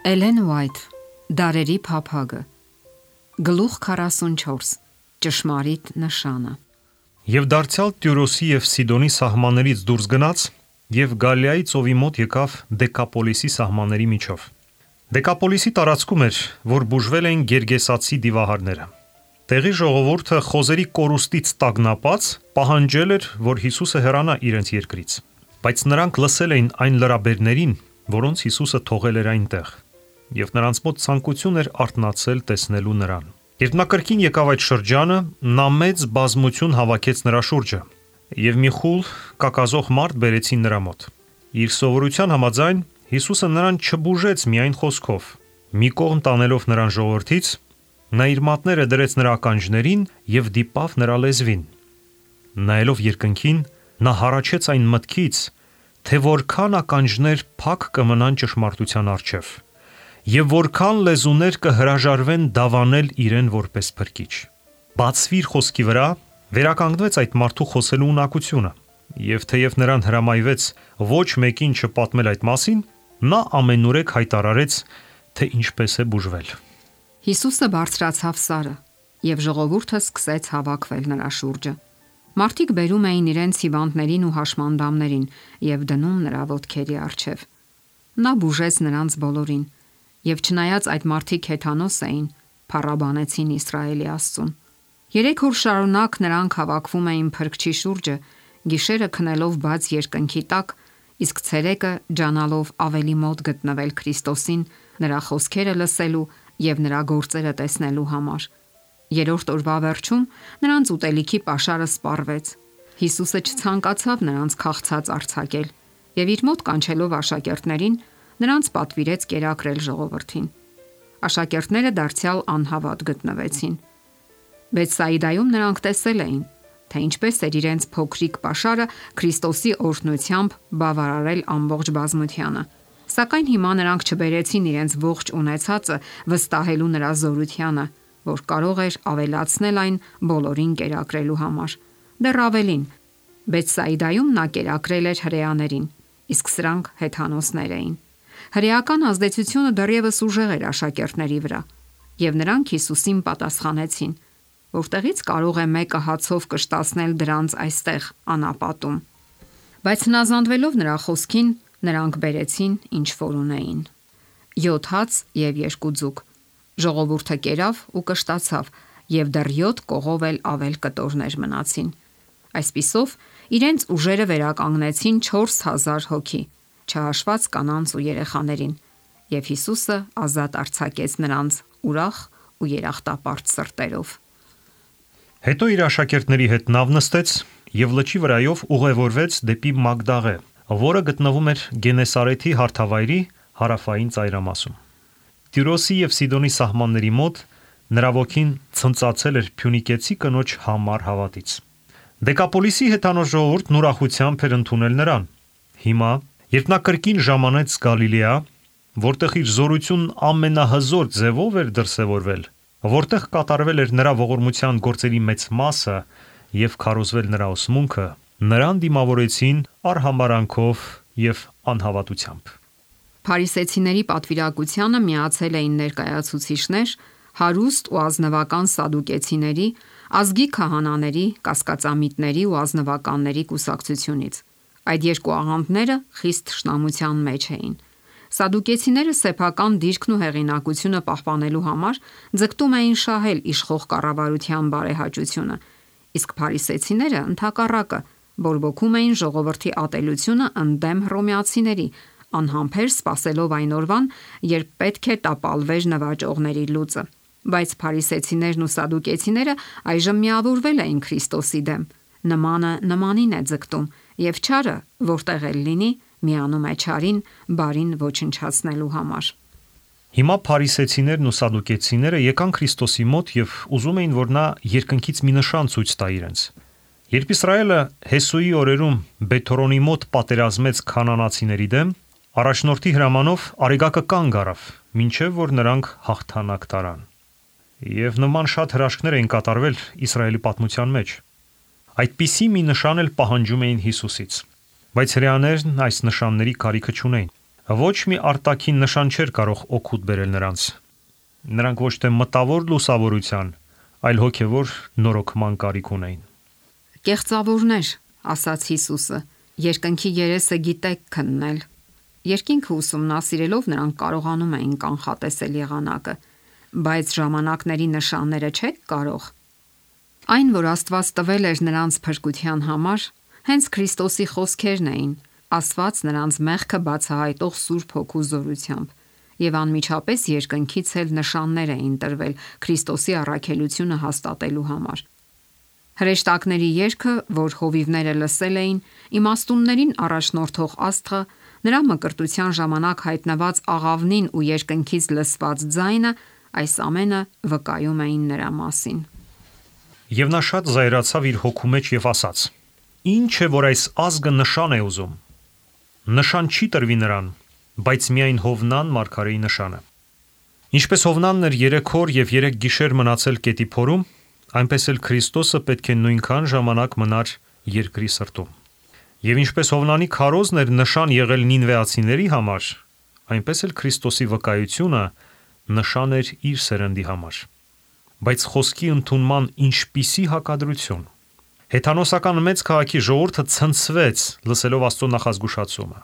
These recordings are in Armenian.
Էլեն Ուայթ, Դարերի փափագը, Գլուխ 44, Ճշմարիտ նշանը։ Եվ դարձյալ Տյուրոսի և Սիդոնի սահմաններից դուրս գնաց և Գալիայի ծովի մոտ եկավ Դեկապոլիսի սահմանների միջով։ Դեկապոլիսի տարածքում էր, որ բուժվել էին գերգեսացի դիվահարները։ Տեղի ժողովուրդը խոզերի կորուստից տագնապած պահանջել էր, որ Հիսուսը հեռանա իրենց երկրից, բայց նրանք լսել էին այն լրաբերներին, որոնց Հիսուսը թողել էր այնտեղ, և նրանց մոտ ցանկություն էր արթնացել տեսնելու նրան։ Երբ նա կրկին եկավ այդ շրջանը, նա մեծ բազմություն հավաքեց նրա շուրջը, և մի խուլ կակազող մարդ բերեցին նրա մոտ։ Իր սովորության համաձայն Հիսուսը նրան չբուժեց միայն խոսքով։ Մի կողմ տանելով նրան ժողովրդից, նա իր մատները դրեց նրա ականջներին և դիպավ նրա լեզվին։ Նայելով երկնքին, նա հառաչեց այն մտքից, թե որքան ականջներ փակ կմնան ճշմարտության առջև, և որքան լեզուներ կհրաժարվեն դավանել իրեն որպես փրկիչ։ Բացվիր խոսքի վրա վերականգնվեց այդ մարդու խոսելու ունակությունը, և թեև նրան հրամայվեց ոչ մեկին չպատմել այդ մասին, նա ամենուրեք հայտարարեց, թե ինչպես է բուժվել։ Հիսուսը բարձրացավ սարը, և ժողովուրդը սկսեց հավաքվել նրա շուրջը։ Մարդիկ բերում էին իրենց հիվանդներին ու հաշմանդամներին և դնում նրա ոտքերի առջև։ Նա բուժեց նրանց բոլորին, և չնայած այդ մարդիկ հեթանոս էին, փառաբանեցին Իսրայելի Աստծուն։ 3 օր շարունակ նրանք հավաքվում էին Փրկչի շուրջը, գիշերը քնելով բաց երկնքի տակ, իսկ ցերեկը ջանալով ավելի մոտ գտնվել Քրիստոսին, նրա խոսքերը լսելու և նրա գործերը տեսնելու համար։ 3-րդ օրվա վերջում նրանց ուտելիքի պաշարը սպառվեց։ Հիսուսը չցանկացավ նրանց քաղցած արձակել և իր մոտ կանչելով աշակերտներին, նրանց պատվիրեց կերակրել ժողովրդին։ Աշակերտները դարձյալ անհավատ գտնվեցին։ Բեթսայիդայում նրանք տեսել էին, թե ինչպես էր իրենց փոքրիկ պաշարը Քրիստոսի օրհնությամբ բավարարել ամբողջ բազմությանը։ Սակայն հիմա նրանք չբերեցին իրենց ողջ ունեցածը վստահելու նրա զորությանը, որ կարող էր ավելացնել այն բոլորին կերակրելու համար։ Դեռ ավելին, Բեթսայիդայում նա կերակրել էր հրեաներին, իսկ սրանք հեթանոսներ էին։ Հրեական ազդեցությունը դեռևս ուժեղ էր աշակերտների վրա, և նրանք Հիսուսին պատասխանեցին, որտեղից կարող է մեկը հացով կշտացնել դրանց այստեղ անապատում։ Բայց հնազանդվելով նրա խոսքին, նրանք բերեցին ինչ որ ունեին. 7 հաց և 2 ձուկ։ Ժողովուրդը կերավ ու կշտացավ, և դեռ 7 կողով էլ ավել կտորներ մնացին։ Այսպիսով իրենց ուժերը վերականգնեցին 4000 հոգի, չհաշված կանանց ու երեխաներին, և Հիսուսը ազատ արձակեց նրանց ուրախ ու երախտապարտ սրտերով։ Հետո իր աշակերտների հետ նավ նստեց և լճի վրայով ուղևորվեց դեպի Մագդաղե, որը գտնվում էր Գենեսարեթի հարթավայրի հարավային ծայրամասում։ Տյուրոսի և Սիդոնի սահմանների մոտ նրա ոգին ցնծացել էր փյունիկեցի կնոջ համառ հավատից։ Դեկապոլիսի հեթանոս ժողովուրդն ուրախությամբ էր ընդունել նրան։ Հիմա, երբ նա կրկին ժամանեց Գալիլեա, որտեղ իր զորությունն ամենահզոր ձևով էր դրսևորվել, որտեղ կատարվել էր նրա ողորմության գործերի մեծ մասը և քարոզվել նրա ուսմունքը, նրան դիմավորեցին արհամարհանքով և անհավատությամբ։ Փարիսեցիների պատվիրակությանը միացել էին ներկայացուցիչներ, հարուստ ու ազնվական սադուկեցիների, ազգի քահանաների, կասկածամիտների ու ազնվականների կուսակցությունից։ Այդ երկու աղանդները խիստ թշնամության մեջ էին։ Սադուկեցիները սեփական դիրքն ու հեղինակությունը պահպանելու համար ձգտում էին շահել իշխող կառավարության բարեհաճությունը, իսկ փարիսեցիները ընդհակառակը բորբոքում էին ժողովրդի ատելությունը ընդդեմ հռոմեացիների, անհամբեր սպասելով այն օրվան, երբ պետք է տապալվեր նվաճողների լուծը։ Բայց փարիսեցիներն ու սադուկեցիները այժմ միավորվել էին Քրիստոսի դեմ։ Նմանը նմանին է ձգտում, և չարը, որտեղ էլ լինի, միանում է չարին բարին ոչնչացնելու համար։ Հիմա փարիսեցիներն ու սադուկեցիները եկան Քրիստոսի մոտ և ուզում էին, որ նա երկնքից մի նշան ցույց տա իրենց։ Երբ Իսրայելը Հեսուի օրերում Բեթհորոնի մոտ պատերազմեց քանանացիների դեմ, առաջնորդի հրամանով արեգակը կանգ առավ, մինչև որ նրանք հաղթանակ տարան։ Եվ նման շատ հրաշքներ էին կատարվել Իսրայելի պատմության մեջ։ Այդպիսի մի նշան էլ պահանջում էին Հիսուսից, բայց հրեաներն այս նշանների կարիքը չունեին։ Ոչ մի արտաքին նշան չէր կարող օգուտ բերել նրանց։ Նրանք ոչ թե մտավոր լուսավորության, այլ հոգևոր նորոգման կարիք ունեին։ Կեղծավորներ, ասաց Հիսուսը, երկնքի երեսը գիտեք քննել։ Երկինքը ուսումնասիրելով նրանք կարողանում էին կանխատեսել եղանակը, բայց ժամանակների նշանները չեք կարող։ Այն, որ Աստված տվել էր նրանց փրկության համար, հենց Քրիստոսի խոսքերն էին, ասված նրանց մեղքը բացահայտող Սուրբ Հոգու զորությամբ, եւ անմիջապես երկնքից էլ նշաններ էին տրվել Քրիստոսի առաքելությունը հաստատելու համար։ Հրեշտակների երգը, որ հովիվները լսել էին, իմաստուններին առաջնորդող աստղը, նրա մկրտության ժամանակ հայտնված աղավնին ու երկնքից լսված ձայնը, այս ամենը վկայում էին նրա մասին։ Եվ նա շատ զայրացավ իր հոգու մեջ եւ ասաց. «Ինչ է, որ այս ազգը նշան է ուզում։ Նշան չի տրվի նրան, բայց միայն Հովնան մարգարեի նշանը»։ Ինչպես Հովնանն էր 3 օր եւ 3 գիշեր մնացել կետի փորում, այնպես էլ Քրիստոսը պետք է նույնքան ժամանակ մնար երկրի սրտում։ Եվ ինչպես Հովնանի քարոզն էր նշան եղել նինվեացիների համար, այնպես էլ Քրիստոսի վկայությունը նշան էր իր սերնդի համար։ Բայց խոսքի ընդունման ինչպիսի հակադրություն։ Հեթանոսական մեծ քաղաքի ժողովուրդը ցնցվեց, լսելով Աստծո նախազգուշացումը։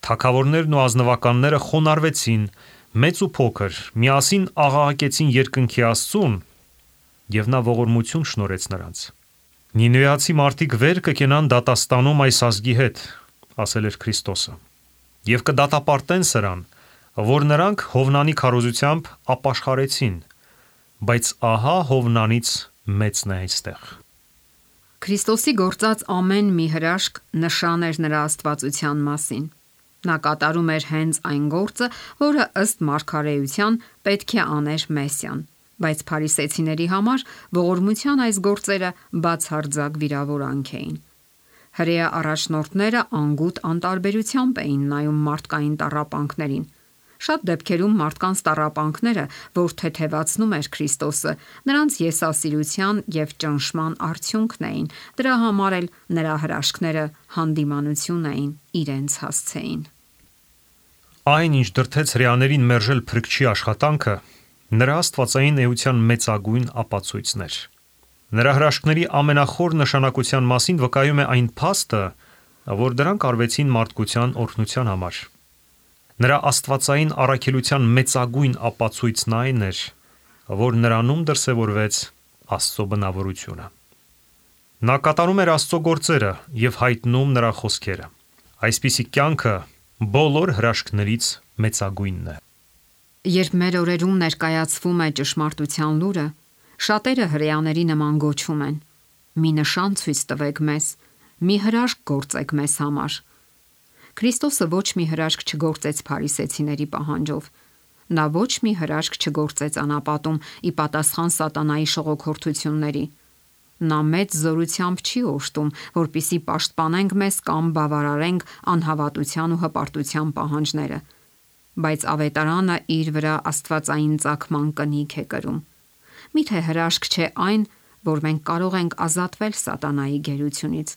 Թագավորներն ու ազնվականները խոնարհվեցին, մեծ ու փոքր, միասին աղաղակեցին երկնքի Աստծուն, եւ նա ողորմություն շնորհեց նրանց։ Նինվեացի մարդիկ վեր կկենան դատաստանում այս ազգի հետ, ասել էր Քրիստոսը, եւ կդատապարտեն սրան, որ նրանք Հովնանի քարոզությամբ ապաշխարեցին, բայց ահա Հովնանից մեծն է այստեղ։ Քրիստոսի գործած ամեն մի հրաշք նշան էր նրա աստվածության մասին։ Նա կատարում էր հենց այն գործը, որը ըստ մարգարեության պետք է աներ Մեսիան, բայց փարիսեցիների համար ողորմության այս գործերը բացարձակ վիրավորանք էին։ Հրեա առաջնորդները անգութ անտարբերությամբ էին նայում մարդկային տառապանքներին։ Շատ դեպքերում մարդկանց տառապանքները, որ թեթևացնում էր Քրիստոսը, նրանց եսասիրության եւ ճնշման արդյունքն էին, դրա համար էլ նրա հրաշքները հանդիմանություն էին իրենց հասցեին։ Այն, ինչ դրդեց հրեաներին մերժել փրկչի աշխատանքը, նրա աստվածային էության մեծագույն ապացույցն էր։ Նրա հրաշքների ամենախոր նշանակության մասին վկայում է այն փաստը, որ դրանք արվեցին մարդկության օրհնության համար։ Նրա աստվածային առաքելության մեծագույն ապացույցն այն էր, որ նրանում դրսևորվեց Աստծո բնավորությունը։ Նա կատարում էր Աստծո գործերը եւ հայտնում նրա խոսքերը։ Այսպիսի կյանքը բոլոր հրաշքներից մեծագույնն է։ Երբ մեր օրերում ներկայացվում է ճշմարտության լուրը, շատերը հրեաների նման գոչում են. «Մի նշան ցույց տվեք մեզ, մի հրաշք գործեք մեզ համար»։ Քրիստոսը ոչ մի հրաշք չգործեց փարիսեցիների պահանջով։ Նա ոչ մի հրաշք չգործեց անապատում ի պատասխան սատանայի շողոքորթությունների։ Նա մեծ զորությամբ չի օժտում, որպիսի պաշտպանենք մեզ կամ բավարարենք անհավատության ու հպարտության պահանջները, բայց ավետարանը իր վրա աստվածային ծագման կնիք է կրում։ Միթե հրաշք չէ այն, որ մենք կարող ենք ազատվել սատանայի գերությունից։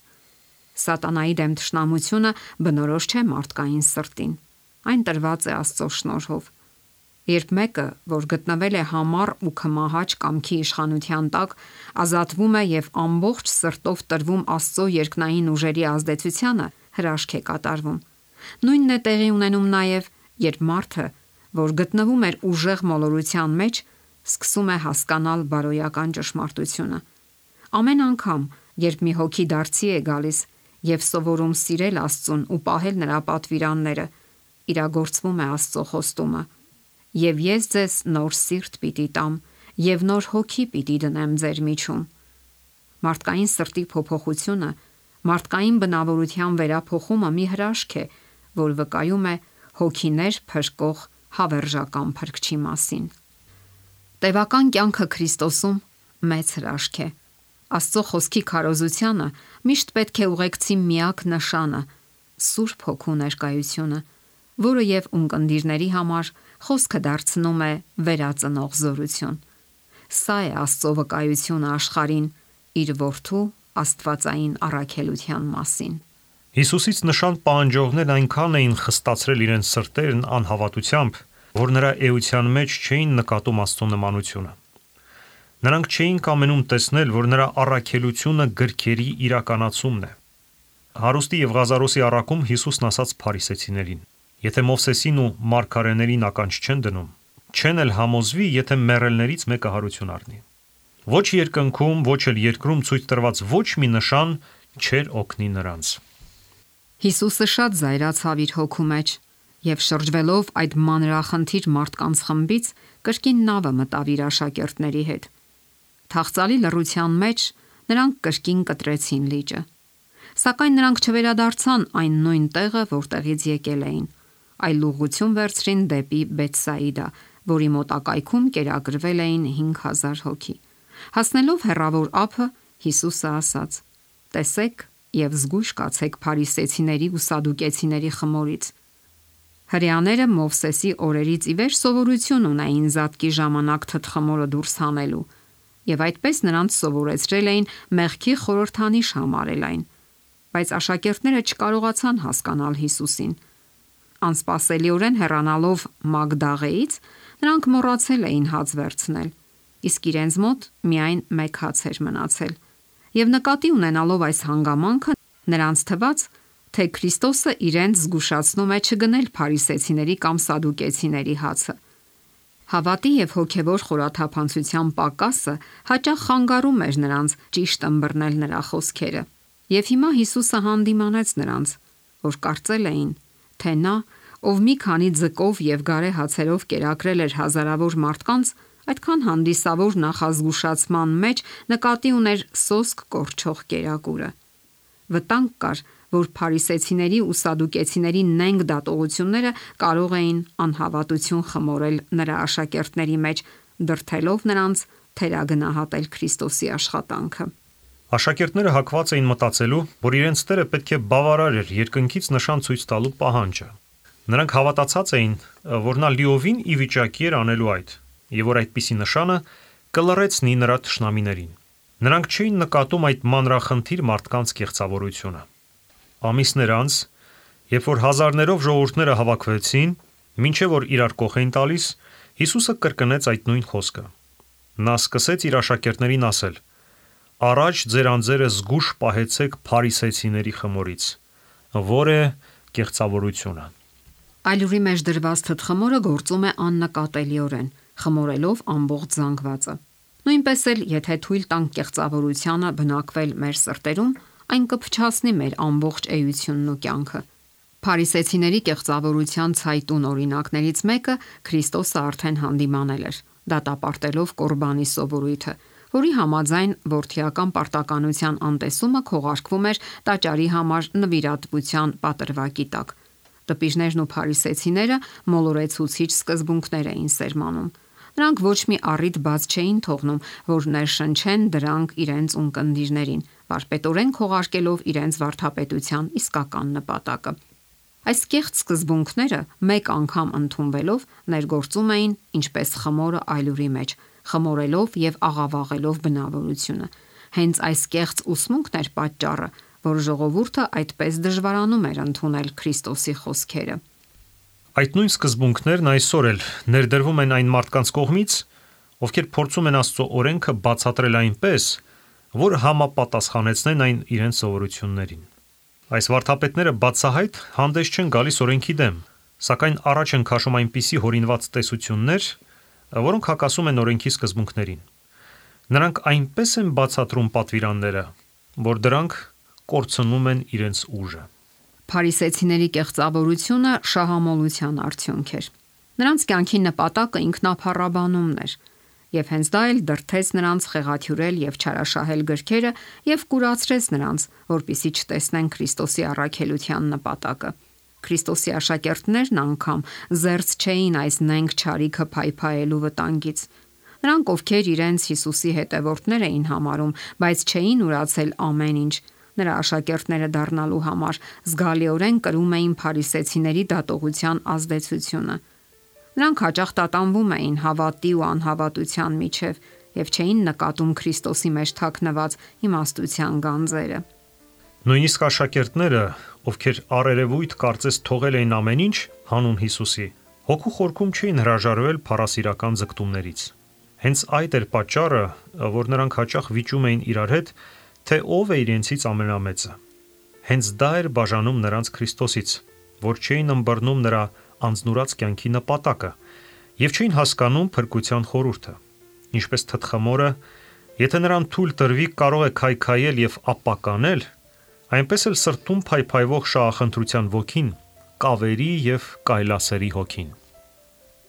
Սատանայի դեմ թշնամությունը բնորոշ չէ մարդկային սրտին։ Այն տրված է Աստծո շնորհով։ Երբ մեկը, որ գտնվել է համառ ու քմահաճ կամքի իշխանության տակ, ազատվում է եւ ամբողջ սրտով տրվում Աստծո երկնային ուժերի ազդեցությանը, հրաշք է կատարվում։ Նույնն է տեղի ունենում նաեւ, երբ մարդը, որ գտնվում էր ուժեղ մոլորության մեջ, սկսում է հասկանալ բարոյական ճշմարտությունը։ Ամեն անգամ, երբ մի հոգի դարձի է գալիս եւ սովորում սիրել Աստծուն ու պահել նրա պատվիրանները, իրագործվում է Աստծո խոստումը. «Եվ ես ձեզ նոր սիրտ պիտի տամ եւ նոր հոգի պիտի դնեմ ձեր միջում»։ Մարդկային սրտի փոփոխությունը, մարդկային բնավորության վերափոխումը մի հրաշք է, որ վկայում է հոգիներ փրկող հավերժական փրկչի մասին։ Տևական կյանքը Քրիստոսում մեծ հրաշք է։ Աստծո խոսքի քարոզությանը միշտ պետք է ուղեկցի միակ նշանը՝ Սուրբ Հոգու ներկայությունը, որը եւ ունկնդիրների համար խոսքը դարձնում է վերածնող զորություն։ Սա է Աստծո վկայությունը աշխարհին իր որդու աստվածային առաքելության մասին։ Հիսուսից նշան պահանջողներն այնքան էին խստացրել իրենց սրտերն անհավատությամբ, որ նրա էության մեջ չէին նկատում Աստծո նմանությունը։ Նրանք չէին կամենում տեսնել, որ նրա առաքելությունը գրքերի իրականացումն է։ Հարուստի եւ Ղազարոսի առաքում Հիսուսն ասաց փարիսեցիներին. Եթե Մովսեսին ու մարգարեներին ականջ չեն դնում, չեն էլ համոզվի, եթե մեռելներից մեկը հարություն առնի։ Ոչ երկնքում, ոչ էլ երկրում ցույց տրված ոչ մի նշան չէր օգնի նրանց։ Հիսուսը շատ զայրացավ իր հոգու մեջ եւ շրջվելով այդ մանրախնդիր մարդկանց խմբից կրկին նավը մտավ իր աշակերտների հետ։ Թախծալի լռության մեջ նրանք կրկին կտրեցին լիճը։ Սակայն նրանք չվերադարձան այն նույն տեղը, որտեղից եկել էին, այլ ուղղություն վերցրին դեպի Բեթսայիդա, որի մոտակայքում կերակրվել էին 5000 հոգի։ Հասնելով հեռավոր ափը, Հիսուսը ասաց. «Տեսեք եւ զգույշ կացեք փարիսեցիների ու սադուկեցիների խմորից»։ Հրեաները Մովսեսի օրերից ի վեր սովորություն ունեին զատկի ժամանակ թթխմորը դուրս հանելու, եւ այդպես նրանց սովորեցրել էին մեղքի խորհրդանիշ համարել այն, բայց աշակերտները չկարողացան հասկանալ Հիսուսին։ Անսպասելիորեն հեռանալով Մագդաղեից, նրանք մոռացել էին հաց վերցնել, իսկ իրենց մոտ միայն մեկ հաց էր մնացել։ Եվ նկատի ունենալով այս հանգամանքը, նրանց թվաց, թե Քրիստոսը իրենց զգուշացնում է չգնել փարիսեցիների կամ սադուկեցիների հացը։ Հավատի եւ հոգեվոր խորաթափանցության պակասը հաճախ խանգարում էր նրանց ճիշտ ըմբռնել նրա խոսքերը։ Եվ հիմա Հիսուսը հանդիմանեց նրանց, որ կարծել էին, թե նա, ով մի քանի ձկով եւ գարե հացերով կերակրել էր հազարավոր մարդկանց, այդքան հանդիսավոր նախազգուշացման մեջ նկատի ուներ սոսկ կորչող կերակուրը։ Վտանգ կար, որ փարիսեցիների ու սադուկեցիների նենգ դատողությունները կարող էին անհավատություն խմորել նրա աշակերտների մեջ, դրդելով նրանց թերագնահատել Քրիստոսի աշխատանքը։ Աշակերտները հակված էին մտածելու, որ իրենց Տերը պետք է բավարար էր երկնքից նշան ցույց տալու պահանջը։ Նրանք հավատացած էին, որ նա լիովին ի վիճակի էր անելու այդ, եւ որ այդպիսի նշանը կլռեցնի նրա թշնամիներին։ Նրանք չէին նկատում այդ մանրախնդիր մարդկանց կեղծավորությունը։ Ամիսներ անց, երբ որ հազարներով ժողովուրդները հավաքվեցին, մինչև որ իրար կողք էին տալիս, Հիսուսը կրկնեց այդ նույն խոսքը։ Նա սկսեց իր աշակերտներին ասել. «Առաջ ձեր անձերը զգուշ պահեցեք փարիսեցիների խմորից, որ է կեղծավորությունը»։ Այլուրի մեջ դրված թթխմորը գործում է աննկատելիորեն, խմորելով ամբողջ զանգվածը։ Նույնպես էլ, եթե թույլ տանք կեղծավորությանը բնակվել մեր սրտերում, այն կփչացնի մեր ամբողջ էությունն ու կյանքը։ Փարիսեցիների կեղծավորության ցայտուն օրինակներից մեկը Քրիստոսը արդեն հանդիմանել էր, դատապարտելով Կորբանի սովորույթը, որի համաձայն որդիական պարտականության անտեսումը քողարկվում էր տաճարի համար նվիրատվության պատրվակի տակ։ Տպիժներն ու փարիսեցիները մոլորեցուցիչ սկզբունքներ էին սերմանում։ Նրանք ոչ մի առիթ բաց չէին թողնում, որ ներշնչեն դրանք իրենց ունկնդիրներին, վարպետորեն քողարկելով իրենց վարդապետության իսկական նպատակը։ Այս կեղծ սկզբունքները մեկ անգամ ընդունվելով ներգործում էին ինչպես խմորը այլուրի մեջ, խմորելով եւ աղավաղելով բնավորությունը։ Հենց այս կեղծ ուսմունքն էր պատճառը, որ ժողովուրդը այդպես դժվարանում էր ընդունել Քրիստոսի խոսքերը։ Այդ նույն սկզբունքներն այսօր էլ ներդրվում են այն մարդկանց կողմից, ովքեր փորձում են Աստծո օրենքը բացատրել այնպես, որ համապատասխանեցնեն այն իրենց սովորություններին։ Այս վարդապետները բացահայտ հանդես չեն գալիս օրենքի դեմ, սակայն առաջ են քաշում այնպիսի հորինված տեսություններ, որոնք հակասում են օրենքի սկզբունքներին։ Նրանք այնպես են բացատրում պատվիրանները, որ դրանք կորցնում են իրենց ուժը։ Փարիսեցիների կեղծավորությունը շահամոլության արդյունք էր։ Նրանց կյանքի նպատակը ինքնափառաբանումն էր, եւ հենց դա էլ դրդեց նրանց խեղաթյուրել եւ չարաշահել գրքերը եւ կուրացրեց նրանց, որպիսի չտեսնեն Քրիստոսի առաքելության նպատակը։ Քրիստոսի աշակերտներն անգամ զերծ չէին այս նենգ չարիքը փայփայելու վտանգից։ Նրանք, ովքեր իրենց Հիսուսի հետևորդներ էին համարում, բայց չէին ուրացել ամեն ինչ, նրա աշակերտները դառնալու համար զգալիորեն կրում էին փարիսեցիների դատողության ազդեցությունը։ Նրանք հաճախ տատանվում էին հավատի ու անհավատության միջև եւ չէին նկատում Քրիստոսի մեջ թաքնված իմաստության գանձերը։ Նույնիսկ աշակերտները, ովքեր առերևույթ կարծես թողել էին ամեն ինչ հանուն Հիսուսի, հոգու խորքում չէին հրաժարվել փառասիրական ձգտումներից։ Հենց այդ էր պատճառը, որ նրանք հաճախ վիճում էին իրար հետ, թե ով է իրենցից ամենամեծը։ Հենց դա էր բաժանում նրանց Քրիստոսից, որ չէին ըմբռնում նրա անձնուրաց կյանքի նպատակը եւ չէին հասկանում փրկության խորհուրդը։ Ինչպես թտխմորը, եթե նրան թույլ տրվի, կարող է քայքայել եւ ապականել, այնպես էլ սրտում փայփայվող շահախնդրության ոգին կավերի եւ կայլասերի հոգին։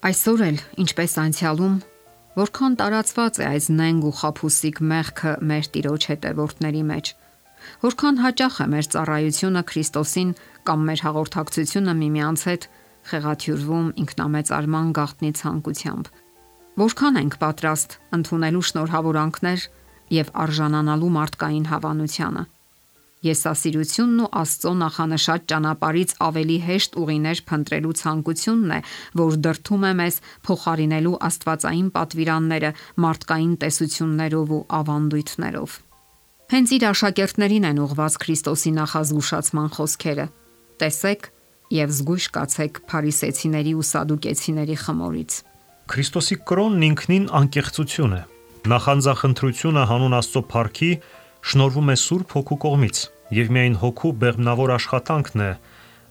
Այսօր էլ, ինչպես անցյալում, որքան տարածված է այս նենգ ու խաբուսիկ մեղքը մեր Տիրոջ հետևորդների մեջ, որքան հաճախ է մեր ծառայությունը Քրիստոսին կամ մեր հաղորդակցությունը միմյանց հետ խեղաթյուրվում ինքնամեծարման գաղտնի ցանկությամբ, որքան ենք պատրաստ ընդունելու շնորհավորանքներ եւ արժանանալու մարդկային հավանությանը։ Եսասիրությունն ու Աստծո նախանշած ճանապարհից ավելի հեշտ ուղիներ փնտրելու ցանկությունն է, որ դրդում է մեզ փոխարինելու աստվածային պատվիրանները մարդկային տեսություններով ու ավանդույթներով։ Հենց իր աշակերտներին են ուղված Քրիստոսի նախազգուշացման խոսքերը. տեսեք եւ զգույշ կացեք փարիսեցիների ու սադուկեցիների խմորից։ Քրիստոսի կրոնն ինքնին անկեղծություն է։ Նախանձախնդրությունը հանուն Աստծո փառքի շնորհվում է Սուրբ Հոգու կողմից, եւ միայն Հոգու բեղմնավոր աշխատանքն է,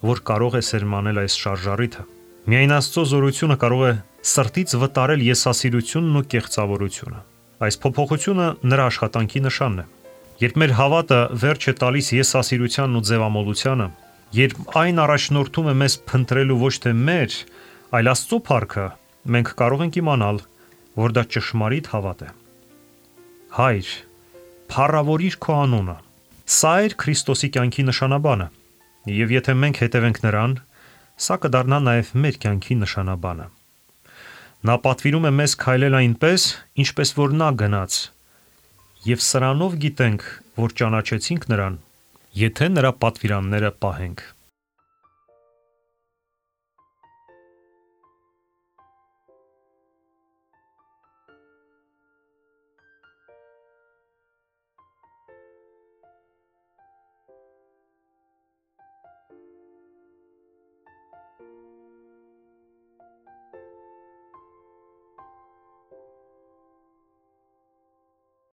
որ կարող է սերմանել այս շարժառիթը։ Միայն Աստծո զորությունը կարող է սրտից վտարել եսասիրությունն ու կեղծավորությունը։ Այս փոփոխությունը նրա աշխատանքի նշանն է։ Երբ մեր հավատը վերջ է տալիս եսասիրությանն ու ձևամոլությանը, երբ այն առաջնորդում է մեզ փնտրելու ոչ թե մեր, այլ Աստծո փառքը, մենք կարող ենք իմանալ, որ դա ճշմարիտ հավատ է։ Հայր, փառավորիր քո անունը։ Սա էր Քրիստոսի կյանքի նշանաբանը, եւ եթե մենք հետևենք նրան, սա կդառնա նաեւ մեր կյանքի նշանաբանը։ Նա պատվիրում է մեզ քայլել այնպես, ինչպես որ նա գնաց, եւ սրանով գիտենք, որ ճանաչեցինք նրան, եթե նրա պատվիրանները պահենք։